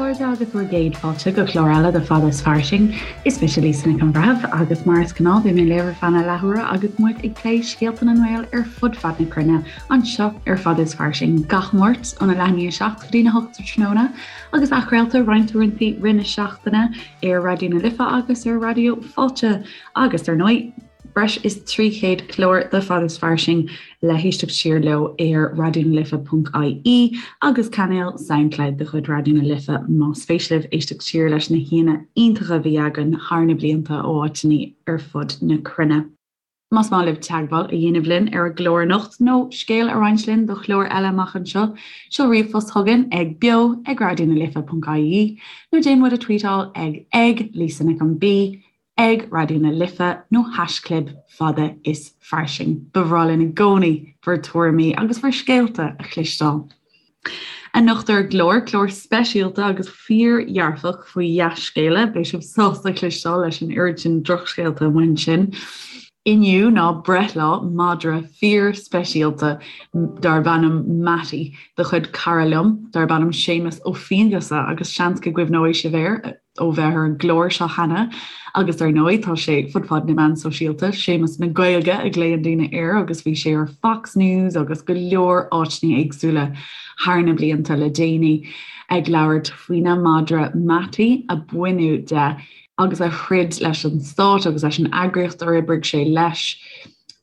chairde agus bhur gcéad fáilte go clár eile de Fada is Fairsing. Is mise Lisa Nic an Bhreithimh agus mar is gnáth beidh mé libh ar feadh na leathuaire agus muid ag plé scéalta na nGael ar fud fad na cruinne anseo ar Fada is Fairsing gach Máirt óna leath i ndiaidh a 7 go dtína 8 sa tráthnóna agus athchraolta roinnt uaireanta i rith na seachtaine ar Raidió na Life agus ar Raidió Fáilte agus ar ndóigh breis is 300 clár de Fada is Fairsing le héisteacht siar leo ar raidionalife.ie agus cainéal Soundcloud de chuid Raidió na Life más spéis libh éisteacht siar leis na haíonna iontacha a bhí againn thar na blianta ó áiteanna ar fud na cruinne. Más maith libh teagmháil a dhéanamh linn ar an gclár anocht nó scéal a roinnt linn do chlár eile amach anseo, seol ríomhphost chugainn ag beo ag raidionalife.ie nó déan muid a tweetáil ag ag Lisa Nic an B ag Raidió na Life nó haischlib fada is fairsing. Ba bhreá linn i gcónaí bhur tuairimí agus bhur scéalta a chloisteáil. Anocht ar an gclár, clár speisialta agus fíordhearfach faoi dhea-scéala, beidh sibh sásta cloisteáil leis an oiread sin drochscéalta amuigh ansin. Inniu ná breithlá madra fíorspeisialta darb ainm Mattie de chuid cara liom darb ainm Séamus Ó Fianghusa agus seans go gcuimhneoidh sibh air. ó bheith ar an gclár seo cheana agus ar ndóigh tá sé fud fad na meán sóisialta, Séamus na Gaeilge a ghlaonn daoine air agus bhí sé ar Fox News agus go leor áiteanna éagsúla thar na blianta le déanaí ag labhairt faoina mhadra Mattie a baineadh de agus a throid leis an stát agus leis an eagraíocht ar oibrigh sé leis.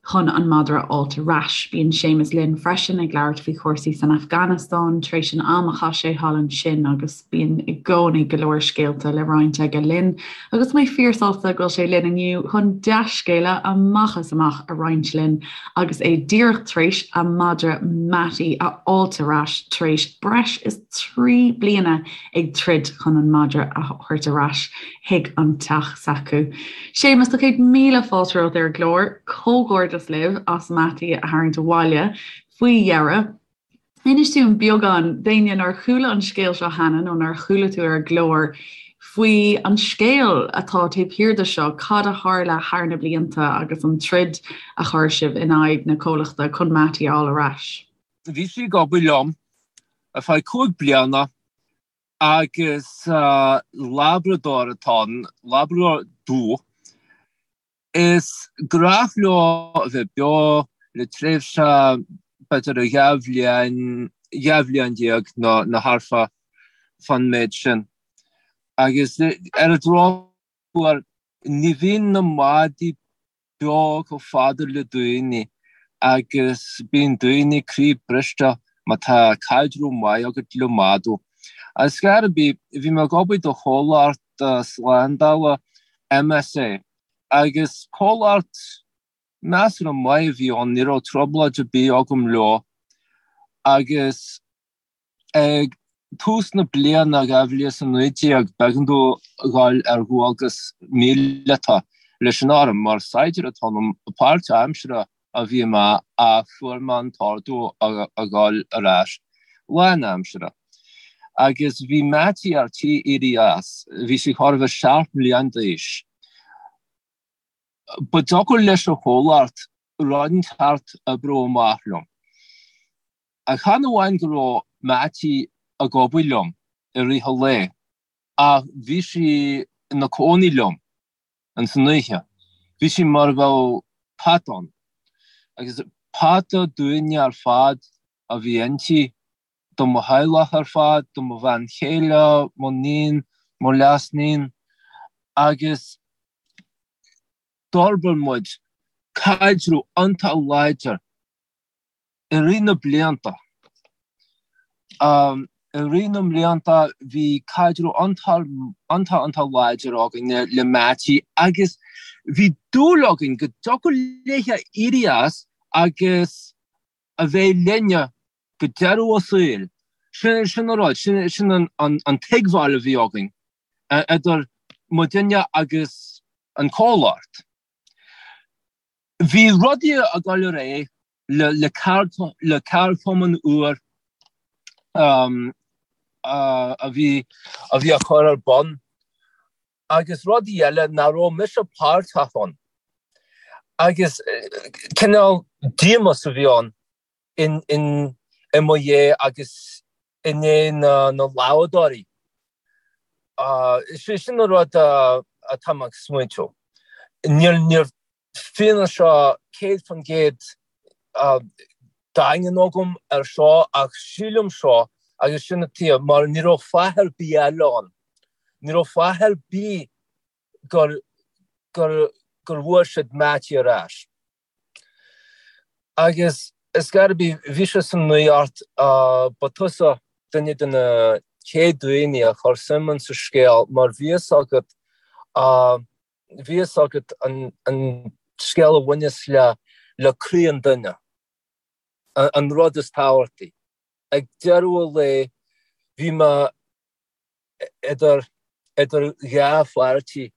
chun an madra a fháilt ar ais. Bíonn Séamus linn freisin ag labhairt faoi chúrsaí san Afganastáin tar éis an am a chaith sé thall ansin agus bíonn i gcónaí go leor scéalta le roinnt aige linn agus tá mé fíorsásta go bhfuil sé linn inniu chun dea-scéala amach is amach a roinnt linn agus é díreach tar éis a mhadra Mattie a fháilt ar ais tar éis breis is 3 bliana ag troid chun an madra a thabhairt ar ais chuig an teach s'acu. Séamus, tá 100,000 fáilte romhat ar an gclár. Comhghairdeas libh as Mattie a tharraingt abhaile faoi dheireadh. Inis dúinn beagán, d'éinne nár chuala an scéal seo cheana nó nár chuala tú ar an gclár, faoi an scéal atá taobh thiar de seo, cad a tharla thar na blianta agus an troid a chuir sibh in aghaidh na comhlachta chun Mattie a fháil ar ais. Bhí sí ag obair liom ar feadh 5 bliana Agus Labrador atá ann, Labrador dubh. Is gnách leo a bheith beo le tréimhse b'fhéidir 12 bhliain, 12 bhliain nó nó thart fá fán méid sin. Agus ar an drochuair ní bhíonn na madaí beo chomh fada le daoine agus bíonn daoine croí briste má tá caidreamh maith agat le madadh. Ar scor ar bith, bhí mé ag obair do chomhlacht slándála MSA agus comhlacht measartha maith a bhí ann, ní raibh trioblóid ar bith agam leo agus Ag tús na bliana 2019, b'éigean domh a dhul ar dhualgas míleata leis an arm mar saighdiúir atá ionam, páirtaimseartha a bhí mé ach fuair mé an t-ordú a dhul ar ais lánaimseartha. Agus bhí Mattie ar tí éirí as, bhí sí chóir a bheith 7 mbliana d'aois. Ba deacair leis an chomhlacht rud inteacht a oibriú amach liom. Ach chan amháin go raibh Mattie ag obair liom i rith an lae, ach bhí sí ina cónaí liom ins an oíche. Bhí sí mar a bheadh pet ann. Agus peata dúinne ar fad a bhí inti, do mo theaghlach ar fad, do mo bhean chéile, mo níon, mo leasníon, agus d'fhorbair muid caidreamh iontach láidir I rith na blianta, I rith na mblianta bhí caidreamh iontach iontach láidir againn le Mattie agus bhí dúil againn go dtiocfadh léithe éirí as agus a bheith linne go deireadh a saoil. Sin sin an rud, sin sin an an tuigbheáil a bhí againn idir muidinne agus an comhlacht. Bhí rudaí ag dul ar aghaidh le ceardchumann úr a bhí a bhí á chur ar bun agus rudaí eile nach raibh mise páirteach ann. Agus cineál díomas a bhí ann in i mo dhiaidh agus i ndiaidh na na Labhadóirí. Sin an rud atá mé ag smaointiú. Níl níl fianaise 100% daingean agam ar seo ach sílim seo agus sin an tuige mar ní raibh fáth ar bith eile ann. Ní raibh fáth ar bith gur gur gur bhfuair siad Mattie ar ais. Agus is gar bhí bhí sé san nuacht ba tusa duine de na chéad daoine a chuir suim in sa scéal mar bhí fhios agat bhí fhios agat an an scéal a bhaineas le le croí an duine, an rud is tábhachtaí. Ag deireadh an lae bhí mé idir idir dhá pháirtí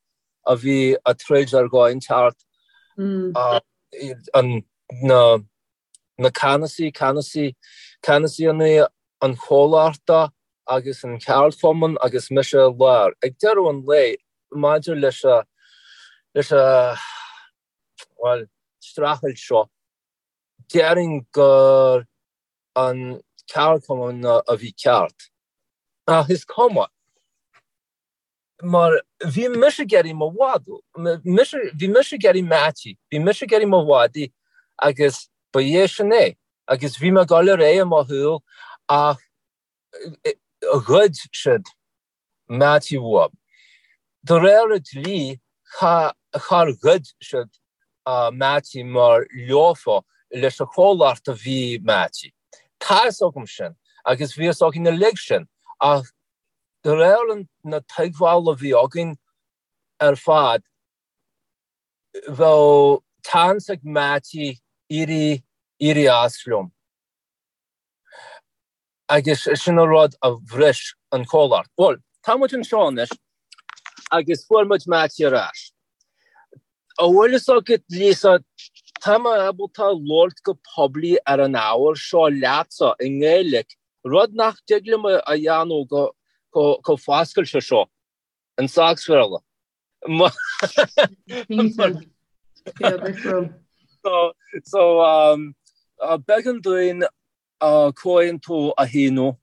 a bhí ag troid ar dhóigh inteacht, an na na ceannasaí, ceannasaí, ceannasaí an chomhlachta agus an cheardchumann agus mise i lár. Ag deireadh an lae, maidir leis a leis a bhuel, streachailt seo, déarfainn gur an ceardchumann a bhí ceart. Ach is cuma, mar bhí mise ag iarraidh mo mhadadh, bhí mise ag iarraidh Mattie, bhí mise ag iarraidh mo mhadaidh agus ba é sin é. Agus bhí mé ag dul ar aghaidh i mo shaol ach ghoid siad Mattie uaim. De réir an dlí, char ghoid siad Mattie mar leofa leis an chomhlacht a bhí Mattie. Tá fhios agam sin agus bhí fhios againn uilig sin ach de réir na tuigbheála a bhí againn ar fad, bheadh seans ag Mattie éirí éirí as liom. Agus sin an rud a bhris an comhlacht. Bhuel, tá muid anseo anois agus fuair muid Mattie ar ais. An bhfuil fhios agat, Lisa, tá mé ábalta labhairt go poiblí ar an ábhar seo leatsa i nGaeilge, rud nach dtig liom a dhéanamh go chomh foscailte seo in Sacsbhéarla. So, b'éigean dúinn comhaontú a shíniú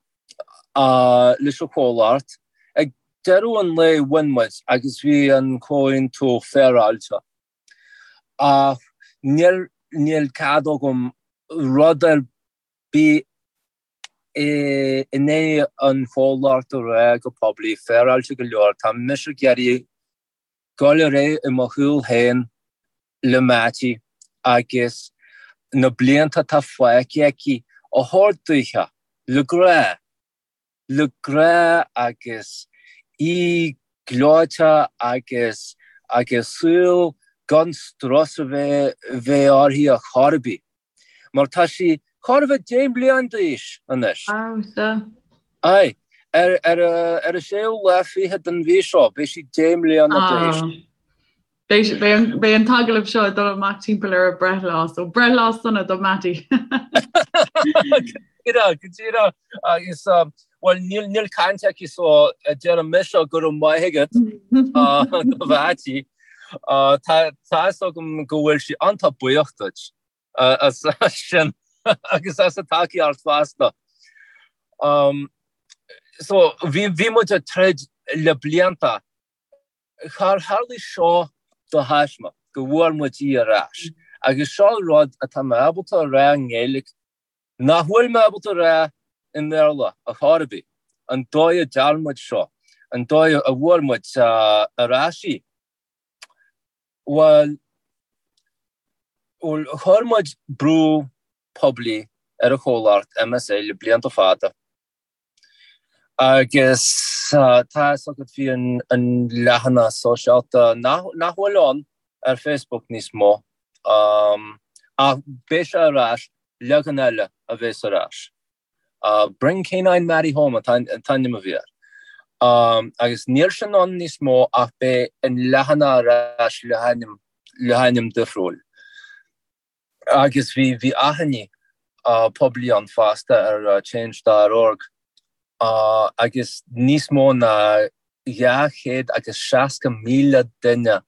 leis an chomhlacht. Ag deireadh an lae bhain muid agus bhí an comhaontú féaráilte. Ach níl níl cead agam rud ar bith in aghaidh an chomhlacht a rá go poiblí, féaráilte go leor. Tá mise ag iarraidh dul ar aghaidh i mo shaol féin le Mattie agus na blianta atá fágtha aici a thabhairt daoithe le grá, le grá agus í gleoite agus agus saol gan strus a bheith bheith uirthi ar chor ar bith. Mar tá sí chóir a bheith 10 mbliana d'aois anois. Wow, sea. Aye. Ar ar ar an séú lá fichead den mhí seo, beidh sí 10 mbliana d'aois. Ah. Beidh beidh an beidh an t-agallamh seo ag dul amach timpeall ar a breithlá, so breithlá sona do Mattie. Go díreach, go díreach. Agus bhuel níl níl caint aici so deirim mise go raibh maith agat do Mhattie. Tá tá fhios agam go bhfuil sí iontach buíoch duit as sin agus as an tacaíocht fosta. So bhí bhí muid ag troid le blianta. Char tharlaigh seo de thaisme go bhfuair muid í ar ais. Agus seo rud atá mé ábalta a rá i nGaeilge nach bhfuil mé ábalta a rá i mBéarla ar chor ar bith, an dóigh a dtearn muid seo, an dóigh a bhfuair muid ar ais í. Bhuel, bhuel, chuir muid brú poiblí ar an chomhlacht MSA le blianta fada. Agus tá fhios agat bhí an leathanach sóisialta nach bhfuil ann ar Facebook níos mó ach beidh sé ar ais, leagan eile a bheas ar ais. Bring K9 Mattie Home an t-ainm a bhí air. Agus níl sin ann níos mó ach beidh an leathanach ar ais le hainm difriúil. Agus bhí bhí achainí poiblí ann fosta ar change dot org agus níos mó ná 260,000 duine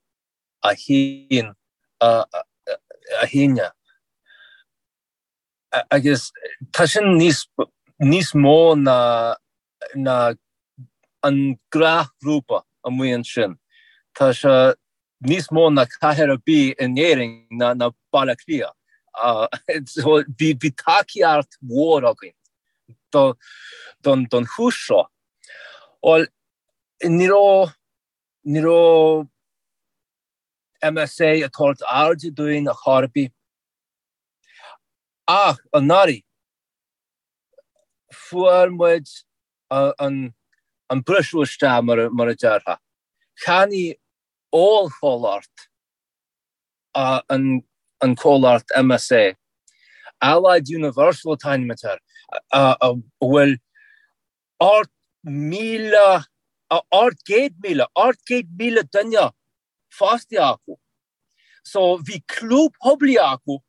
a shín a shínigh. Agus tá sin níos níos mó ná ná. an gnáthghrúpa amuigh ansin. Tá sé níos mó ná cathair ar bith in Éirinn ná Baile Átha Cliath. So bhí bhí tacaíocht mhór againn do don don chúis seo. Bhuel, ní raibh ní raibh MSA ag tabhairt airde dúinn ar chor ar bith. Ach anuraidh, fuair muid an briseadh isteach, mar a déarfá. Cheannaigh ollchomhlacht an comhlacht MSA, Allied Universal an t-ainm atá air, a bhfuil 8,000, 800,000, 800,000 duine fostaithe acu. So bhí clú poiblí acu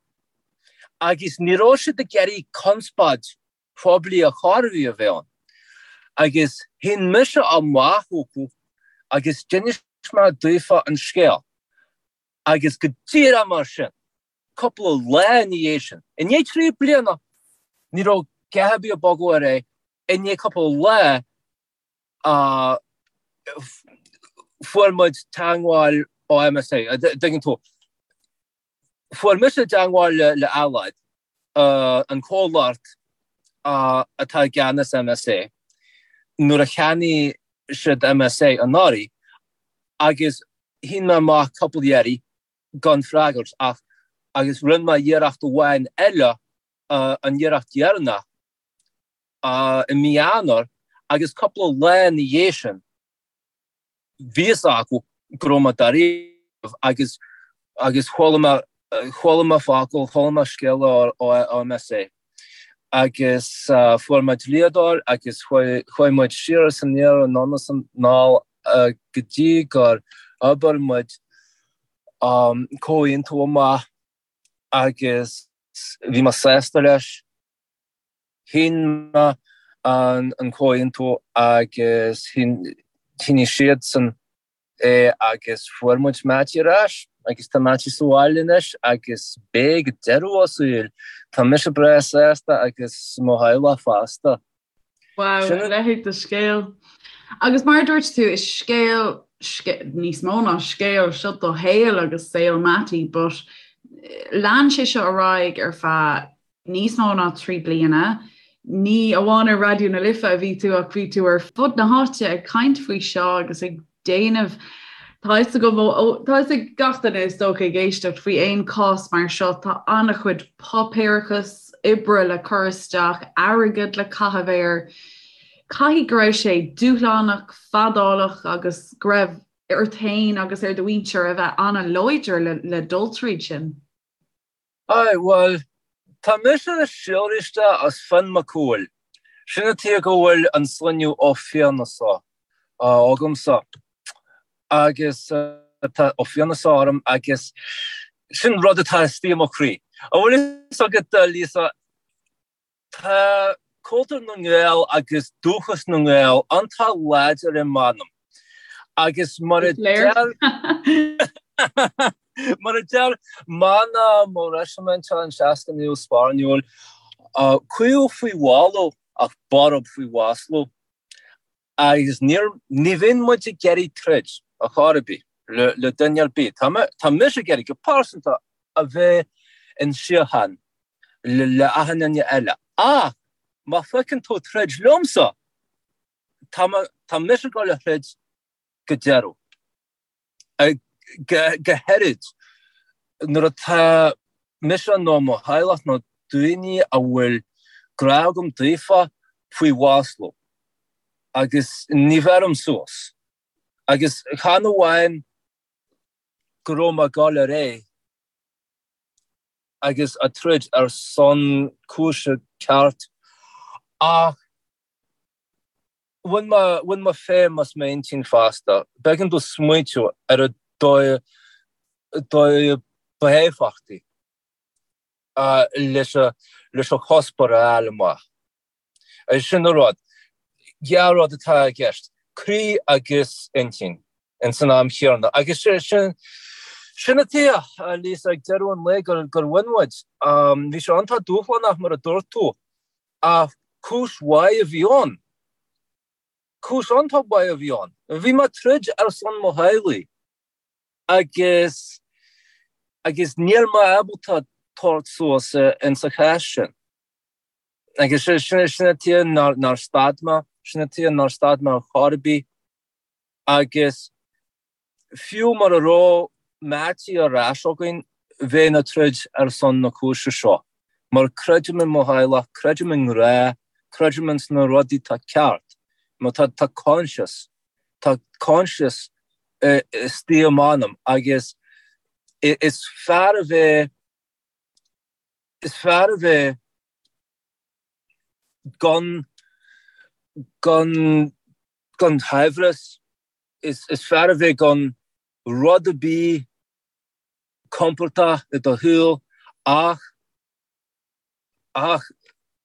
agus ní raibh siad ag iarraidh conspóid phoiblí ar chor ar bith a bheith ann. Agus shín mise amach chucu agus d'inis mé daofa an scéal. Agus go díreach mar sin, cúpla lá ina dhiaidh sin, i ndiaidh 3 bliana, ní raibh a dhath ar bith ag bogadh ar aghaidh, i ndiaidh cúpla lá, fuair muid teagmháil ó MSA, an dtuigeann tú. Fuair mise teagmháil le Allied, an comhlacht atá i gceannas MSA, nuair a cheannaigh siad MSA anuraidh agus shín mé amach cúpla iarraidh gan freagairt ach agus rinne mé iarracht amháin eile, an iarracht dheireanach, i mí Eanáir agus cúpla lá ina dhiaidh sin bhí fhios acu go raibh mé dáiríre agus agus chuala mé chuala mé focal, chuala mé scéala ó MSA agus fuair mé dlíodóir agus chuaigh chuaigh muid siar is aniar anonn is anall go dtí gur oibir muid comhaontú amach agus bhí mé sásta leis. Shín mé an comhaontú agus shínigh siadsan é agus fuair muid Mattie ar ais agus tá Mattie sa bhaile anois agus beidh go deireadh a saoil. Tá mise breá sásta agus mo theaghlach fosta. Wow, a leithéid de scéal. Agus mar a dúirt tú, is scéal, níos mó ná scéal, seo do shaol agus saol Mattie, but lean sé seo ar aghaidh ar feadh níos mó ná 3 bliana. Ní amháin ar Raidió na Life a bhí tú ach bhí tú ar fud na háite ag caint faoi seo agus ag déanamh Tá fhios agam ó tá fhios ag gach duine is dócha ag éisteacht faoi aon cás mar seo tá an-chuid páipéarachas oibre le cur isteach, airgead le caitheamh air. Caithfidh go raibh sé dúshlánach, fadálach agus go raibh ort féin agus ar do mhuintir a bheith an-láidir le, le dul tríd sin. Aye, bhuel, tá mise síolraithe as Fionn Mac Cumhaill. Sin an tuige go bhfuil an sloinneadh Ó Fiannasa agamsa. Agus tá Ó Fiannasa orm agus sin rud atá istigh i mo chroí. An bhfuil fhios agat, Lisa, Tá cultúr na nGael agus dúchas na nGael iontach láidir i m'anam agus mar a deir mar a deir mana mo reisiminte an 69ú Sparáiniúil, caol faoi mhallú ach borb faoi mhaslú. Agus níor, ní bhíonn muid ag iarraidh troid ar chor ar bith le, le duine ar bith. Tá mé, tá mise ag iarraidh go pearsanta a bheith in síocháin le, le achan duine eile. Ach má phiocann tú troid liomsa, tá mé, tá mise ag dul a throid go deireadh. Go háirid nuair atá mise nó mo theaghlach nó daoine a bhfuil grá agam daofa faoi mhaslú agus ní bheirim suas. Agus chan amháin go raibh mé ag dul ar aghaidh agus ag troid ar son cúise ceart ach Bhain mé, bhain mé feidhm as m'intinn fosta. B'éigean domh smaointiú ar an dóigh, dóigh ba éifeachtaí leis an, leis an chuspóir a fháil amach. Sin an rud. Dhá rud atá i gceist, croí agus intinn ins an am chéanna. Agus sin, sin an tuige, Lisa, ag deireadh an lae gur, gur bhain muid. Bhí sé iontach dúshlánach mar a dúirt tú. Ach cúis mhaith a bhí ann. Cúis iontach mhaith a bhí ann. Bhí mé ag troid ar son mo theaghlaigh agus agus níl mé ábalta tabhairt suas insa chás sin. Agus sin sin an tuige nár nár stad mé, sin an tuige nár stad mé ar chor ar bith agus Fiú mura raibh Mattie ar ais againn, bheinn ag troid ar son na cúise seo, mar creidim i mo theaghlach, creidim i ngrá, creidim ins na rudaí atá ceart, mar tá tá coinsias, tá coinsias istigh i m'anam agus is fearr a bheith, is fearr a bheith gan, gan, gan shaibhreas. Is fearr a bheith gan rud ar bith compordach i do shaol ach ach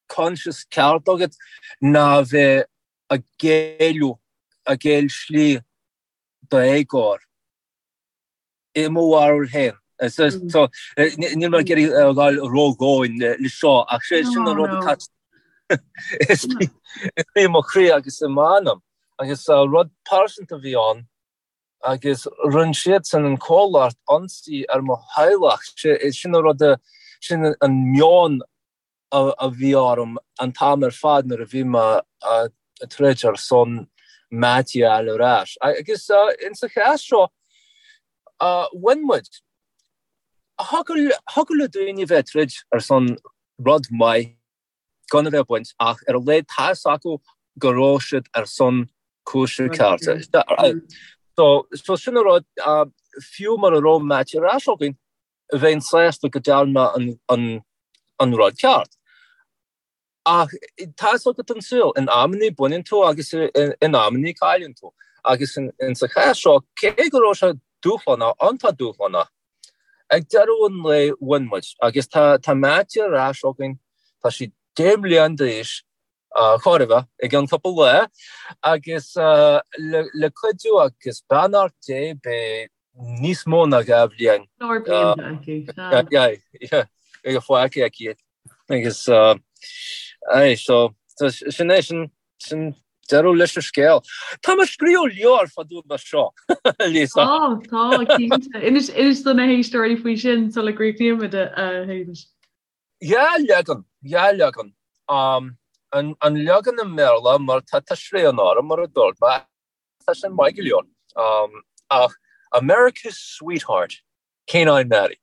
coinsias ceart agat ná a bheith ag géilleadh, ag géill slí d'éagóir. I mo bharúil féin. So, níl mé ag iarraidh a ghabháil ródhomhain le seo ach sé sin an rud atá i mo chroí agus i m'anam. Agus rud pearsanta a bhí ann agus rinne siadsan an comhlacht ionsaí ar mo theaghlach. Sin an rud, sin an meon a bhí orm an t-am ar fad nuair a bhí mé ag troid ar son Mattie a fháil ar ais. Agus insa chás seo, bhain muid. Thiocfadh le daoine a bheith ag troid ar son rud maith gan a bheith ag baint ach ar a laghad tá fhios acu go raibh siad ar son cúise cearta. So sin an rud, fiú mura raibh Mattie ar ais againn, bheinn sásta go ndearna mé an rud ceart. Ach tá fhios agat an saol, in amannaí baineann tú agus in amannaí cailleann tú. Agus insa chás seo, cé go raibh sé dúshlánach, iontach dúshlánach, ag deireadh an lae bhain muid. Agus tá Mattie ar ais againn, tá sí 10 mbliana d'aois, chóir a bheith, i gceann cúpla lá, agus le cuidiú agus beannacht Dé beidh níos mó ná 2 bhliain. Leor blianta aici, sea. Yeah, fágtha aici. Agus, aye, so, sin é, sin, sin deireadh leis an scéal. Tá mé ag scríobh leabhar fá dtaobh de seo, Lisa. Tá, tá, cinnte. Inis, inis do na héisteoirí faoi sin sula gcríochnaímid, a Shéamais. Dhá leagan, dhá leagan. An leagan i mBéarla mar tá tá srian orm mar a dúirt mé, tá sin maith go leor. Ach America's Sweetheart, Canine Mattie.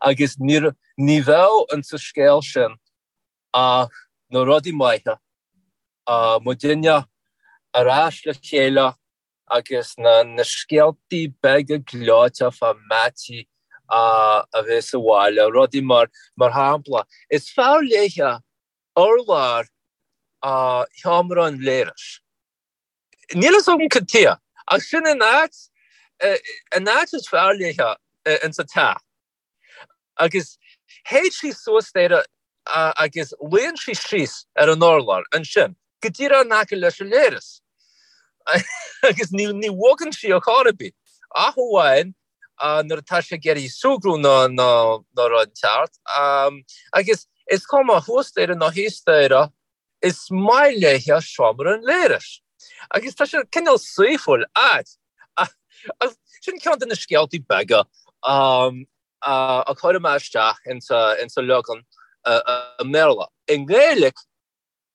Agus ní ní bheadh insa scéal sin ach na rudaí maithe, muidinne ar ais le chéile, agus na na scéaltaí beaga gleoite fá Mattie a bheith sa bhaile, rudaí mar, mar shampla, is fearr léithe urlár sheomra an léiris. Níl fhios agam cad tuighe, ach sin an áit, an áit is fearr léithe insa teach. Agus théid sí suas staighre agus luíonn sí síos ar an urlár ansin, go díreach in aice leis an léireas. Agus ní ní bhogann sí ar chor ar bith, ach amháin nuair atá sí ag iarraidh súgradh nó nó nó rud inteacht. Agus is cuma thuas staighre nó thíos staighre, is maith léithe seomra an léiris. Agus tá sé cineál saoithiúil, ait. Ach sin ceann de na scéaltaí beaga a chuir mé isteach insa leagan i mBéarla. I nGaeilge,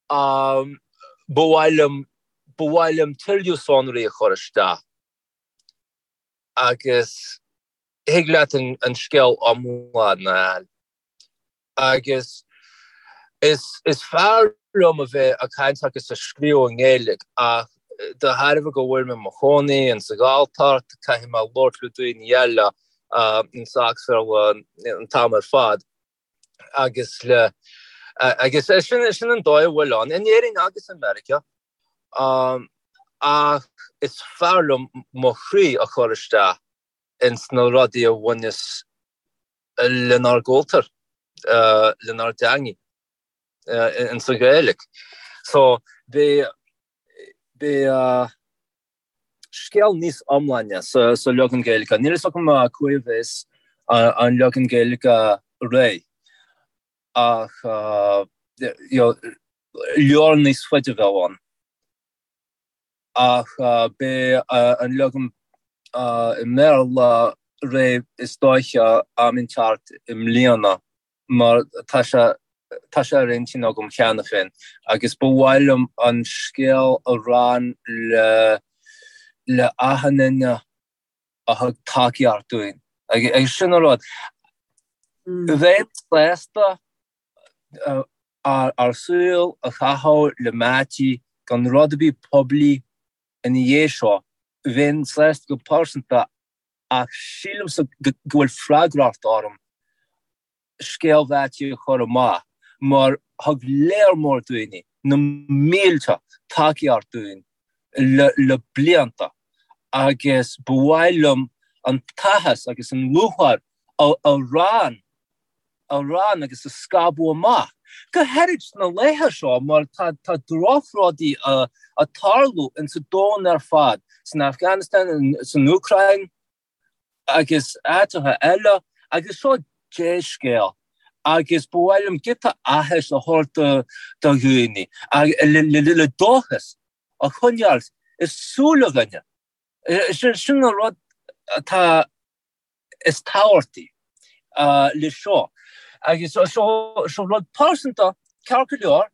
ba mhaith liom, ba mhaith liom tuilleadh sonraí a chur isteach agus thig leat an scéal iomlán a fháil. Agus is is fearr liom a bheith ag caint agus ag scríobh i nGaeilge ach de thairbhe go bhfuil mé i mo chónaí insa Ghalltacht caithfidh mé labhairt le daoine eile insa Bhéarla an t-am ar fad agus le agus sin sin an dóigh a bhfuil ann in Éirinn agus i Meiriceá ach is fearr liom mo chroí a chur isteach ins na rudaí a bhaineas lenár gcultúr, lenár dteangaidh, insa Ghaeilge. So, beidh, beidh scéal níos iomláine sa, sa leagan Gaeilge. Níl fhios agam cá huair a bheas an leagan Gaeilge réidh, ach you know, leabhar níos faide a bheadh ann. Ach beidh an leagan i mBéarla réidh is dóiche am inteacht i mbliana mar tá sé tá sé ar intinn agam cheana féin agus ba mhaith liom an scéal a roinnt le le achan duine a thug tacaíocht dúinn. Agus sin an rud. Bheinn sásta ár saol a chaitheamh le Mattie gan rud ar bith poiblí ina dhiaidh seo. Bheinn sásta go pearsanta ach sílimse go bhfuil freagracht orm scéal Mhattie a chur amach mar thug léar mór daoine, na mílte, tacaíocht dúinn le blianta agus ba mhaith liom an t-áthas agus an lúcháir a roinnt a roinnt agus a scaipeadh amach, go háirid sna laetha seo mar tá tá drochrudaí ag tarlú insa domhan ar fad, san Afghanistan, san Úcráin agus áiteacha eile agus seo dea-scéal agus ba mhaith liom giota áthais a thabhairt do dhaoine le dóchas a choinneáil i súile dhuine. Sin an rud atá is tábhachtaí le seo. Agus seo rud pearsanta, ceart go leor,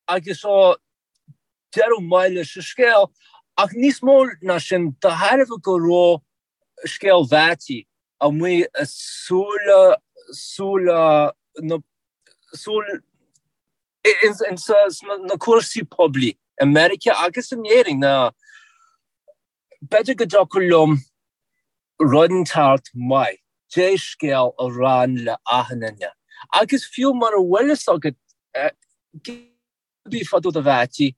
agus seo deireadh maith leis an scéal, ach níos mó ná sin, de thairbhe go raibh scéal Mhattie amuigh i súile, súile na, súil, ins na cúrsaí poiblí i Meiriceá agus in Éirinn, ná B'fhéidir go dtiocfadh liom rud inteacht maith, dea-scéal a roinnt le achan duine. Agus fiú mura bhfuil fhios agat cibé fá dtaobh de Mhattie,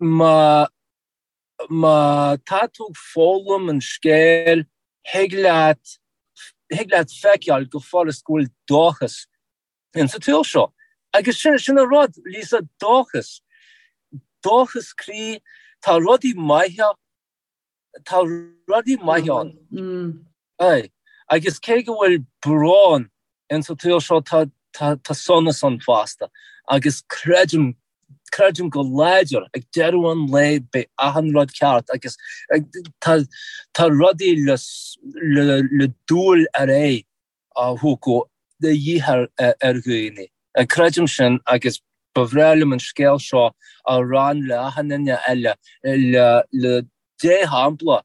má má tá tú ag foghlaim an scéil, thig leat thig leat feiceáil go furast go bhfuil dóchas insa tsaol seo. Agus sin, sin an rud, Lisa, dóchas. Dóchas croí, tá rudaí maithe, tá rudaí maithe ann. Aye. Agus cé go bhfuil brón insa tsaol seo, tá, tá, tá sonas ann fosta. Agus creidim, creidim go láidir, ag deireadh an lae beidh achan rud ceart agus tá, tá rudaí le, le, le dul ar aghaidh. a thiocfadh de dhíth ar dhaoine. Creidim sin agus ba bhreá liom an scéal seo a roinnt le achan duine eile le dea-shampla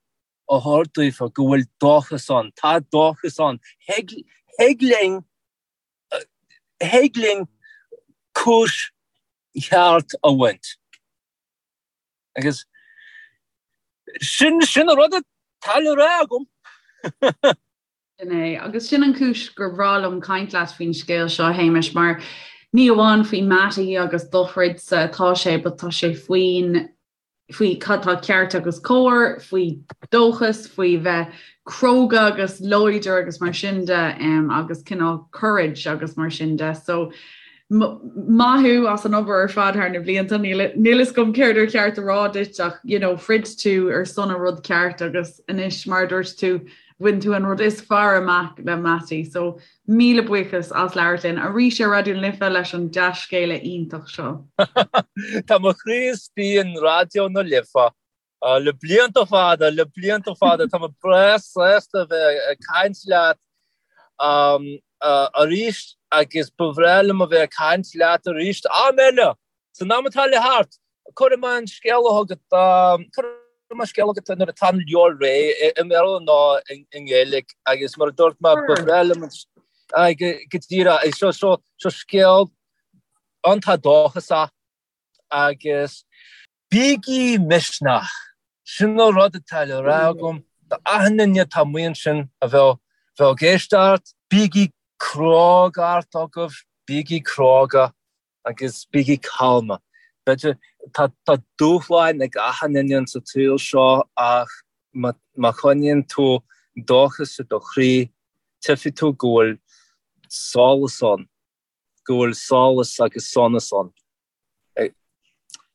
a thabhairt daofa go bhfuil dóchas ann. Tá dóchas ann. Thig linn, thig linn cúis cheart a bhaint. Agus sin, sin an rud atá le rá agam. Sin é. Agus sin an chúis gur bhreá liom caint leat faoin scéal seo, a Shéamais, mar ní amháin faoi Mattie agus do throidsa atá sé, but tá sé faoin, faoi cad tá ceart agus cóir, faoi dóchas, faoi bheith cróga agus láidir agus mar sin de, agus cineál courage agus mar sin de. So, maith thú as an obair ar fad thar na blianta. Níl fhios agam céard ar cheart a rá duit ach, you know, throid tú ar son an rud ceart agus anois, mar a dúirt tú, Bhain tú an rud is fearr amach le Mattie so míle buíochas as labhairt linn arís ar Raidió na Life leis an dea-scéala iontach seo. Tá mo chroí istigh in Raidió na Life le blianta fada, le blianta fada. Tá mé breá sásta a bheith ag caint leat arís agus ba bhreá liom a bheith ag caint leat arís am eile! San am atá le theacht, cuirfidh mé an scéala chugat, cuirfidh mé scéala chugat nuair atá an leabhar réidh, i mBéarla nó i nGaeilge, agus mar a dúirt mé, ba bhreá liom an, go díreach, seo, seo, seo scéal iontach dóchasach agus bígí misneach, sin an rud atá le rá agam do achan duine atá amuigh ansin a bheadh, bheadh ag éisteacht, bígí crógacht agaibh, bígí cróga. Agus bígí calma. B'fhéidir, tá tá dúshláin ag achan duine insa tsaol seo ach má má choinníonn tú dóchas i do chroí, tchífidh tú go bhfuil solas ann, go bhfuil solas agus sonas ann.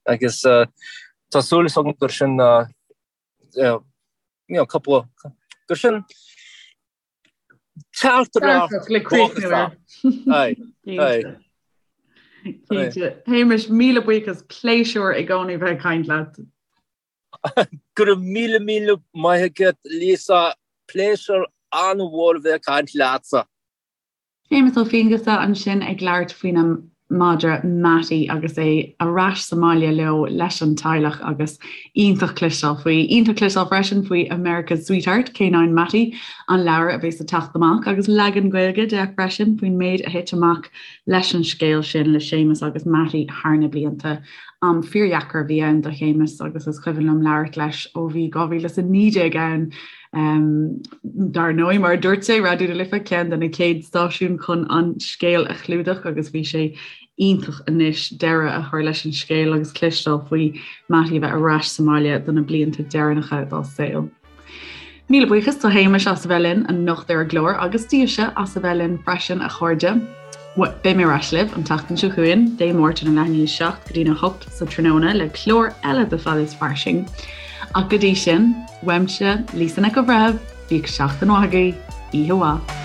Agus tá súil agam gur sin you know, cúpla, gur sin Teachtaireacht le críochnú air. Aye, aye. Cinnte. Shéamais, míle buíochas, pléisiúr i gcónaí bheith ag caint leat. Go raibh míle míle maith agat Lisa, pléisiúr an-mhór a bheith ag caint leatsa. Séamus Ó Fianghusa ansin ag labhairt faoina mhadra Mattie agus é ar ais sa mbaile leo leis an teaghlach agus iontach cloisteáil faoi. Iontach cloisteáil freisin faoi America's Sweetheart, K9 Mattie, an leabhar a bheas ag teacht amach agus leagan Gaeilge de freisin faoin méid a thit amach leis an scéal sin le Séamus agus Mattie thar na blianta. Am fíordheacair a bhí ann do Shéamus agus is cuimhin liom labhairt leis ó bhí 2019 ann Dar ndóigh, mar a dúirt sé, Raidió na Life ceann de na chéad stáisiúin chun an scéal a chlúdach agus bhí sé iontach anois deireadh a chur leis an scéal agus cloisteáil faoi Mattie a bheith ar ais sa mbaile do na blianta deireanacha dá saol. Míle buíochas do Shéamus as a bheith linn anocht ar an gclár agus daoibhse as a bheith linn freisin a chairde. Beidh mé ar ais libh an tseachtain seo chugainn, Dé Máirt óna leath i ndiaidh a 7 go dtína 8 sa tráthnóna le clár eile de Fad is Fairsing. Ach go dtí sin, uaimse, Lisa Nic an Bhreithimh, bíodh seachtain mhaith agaibh, oíche mhaith.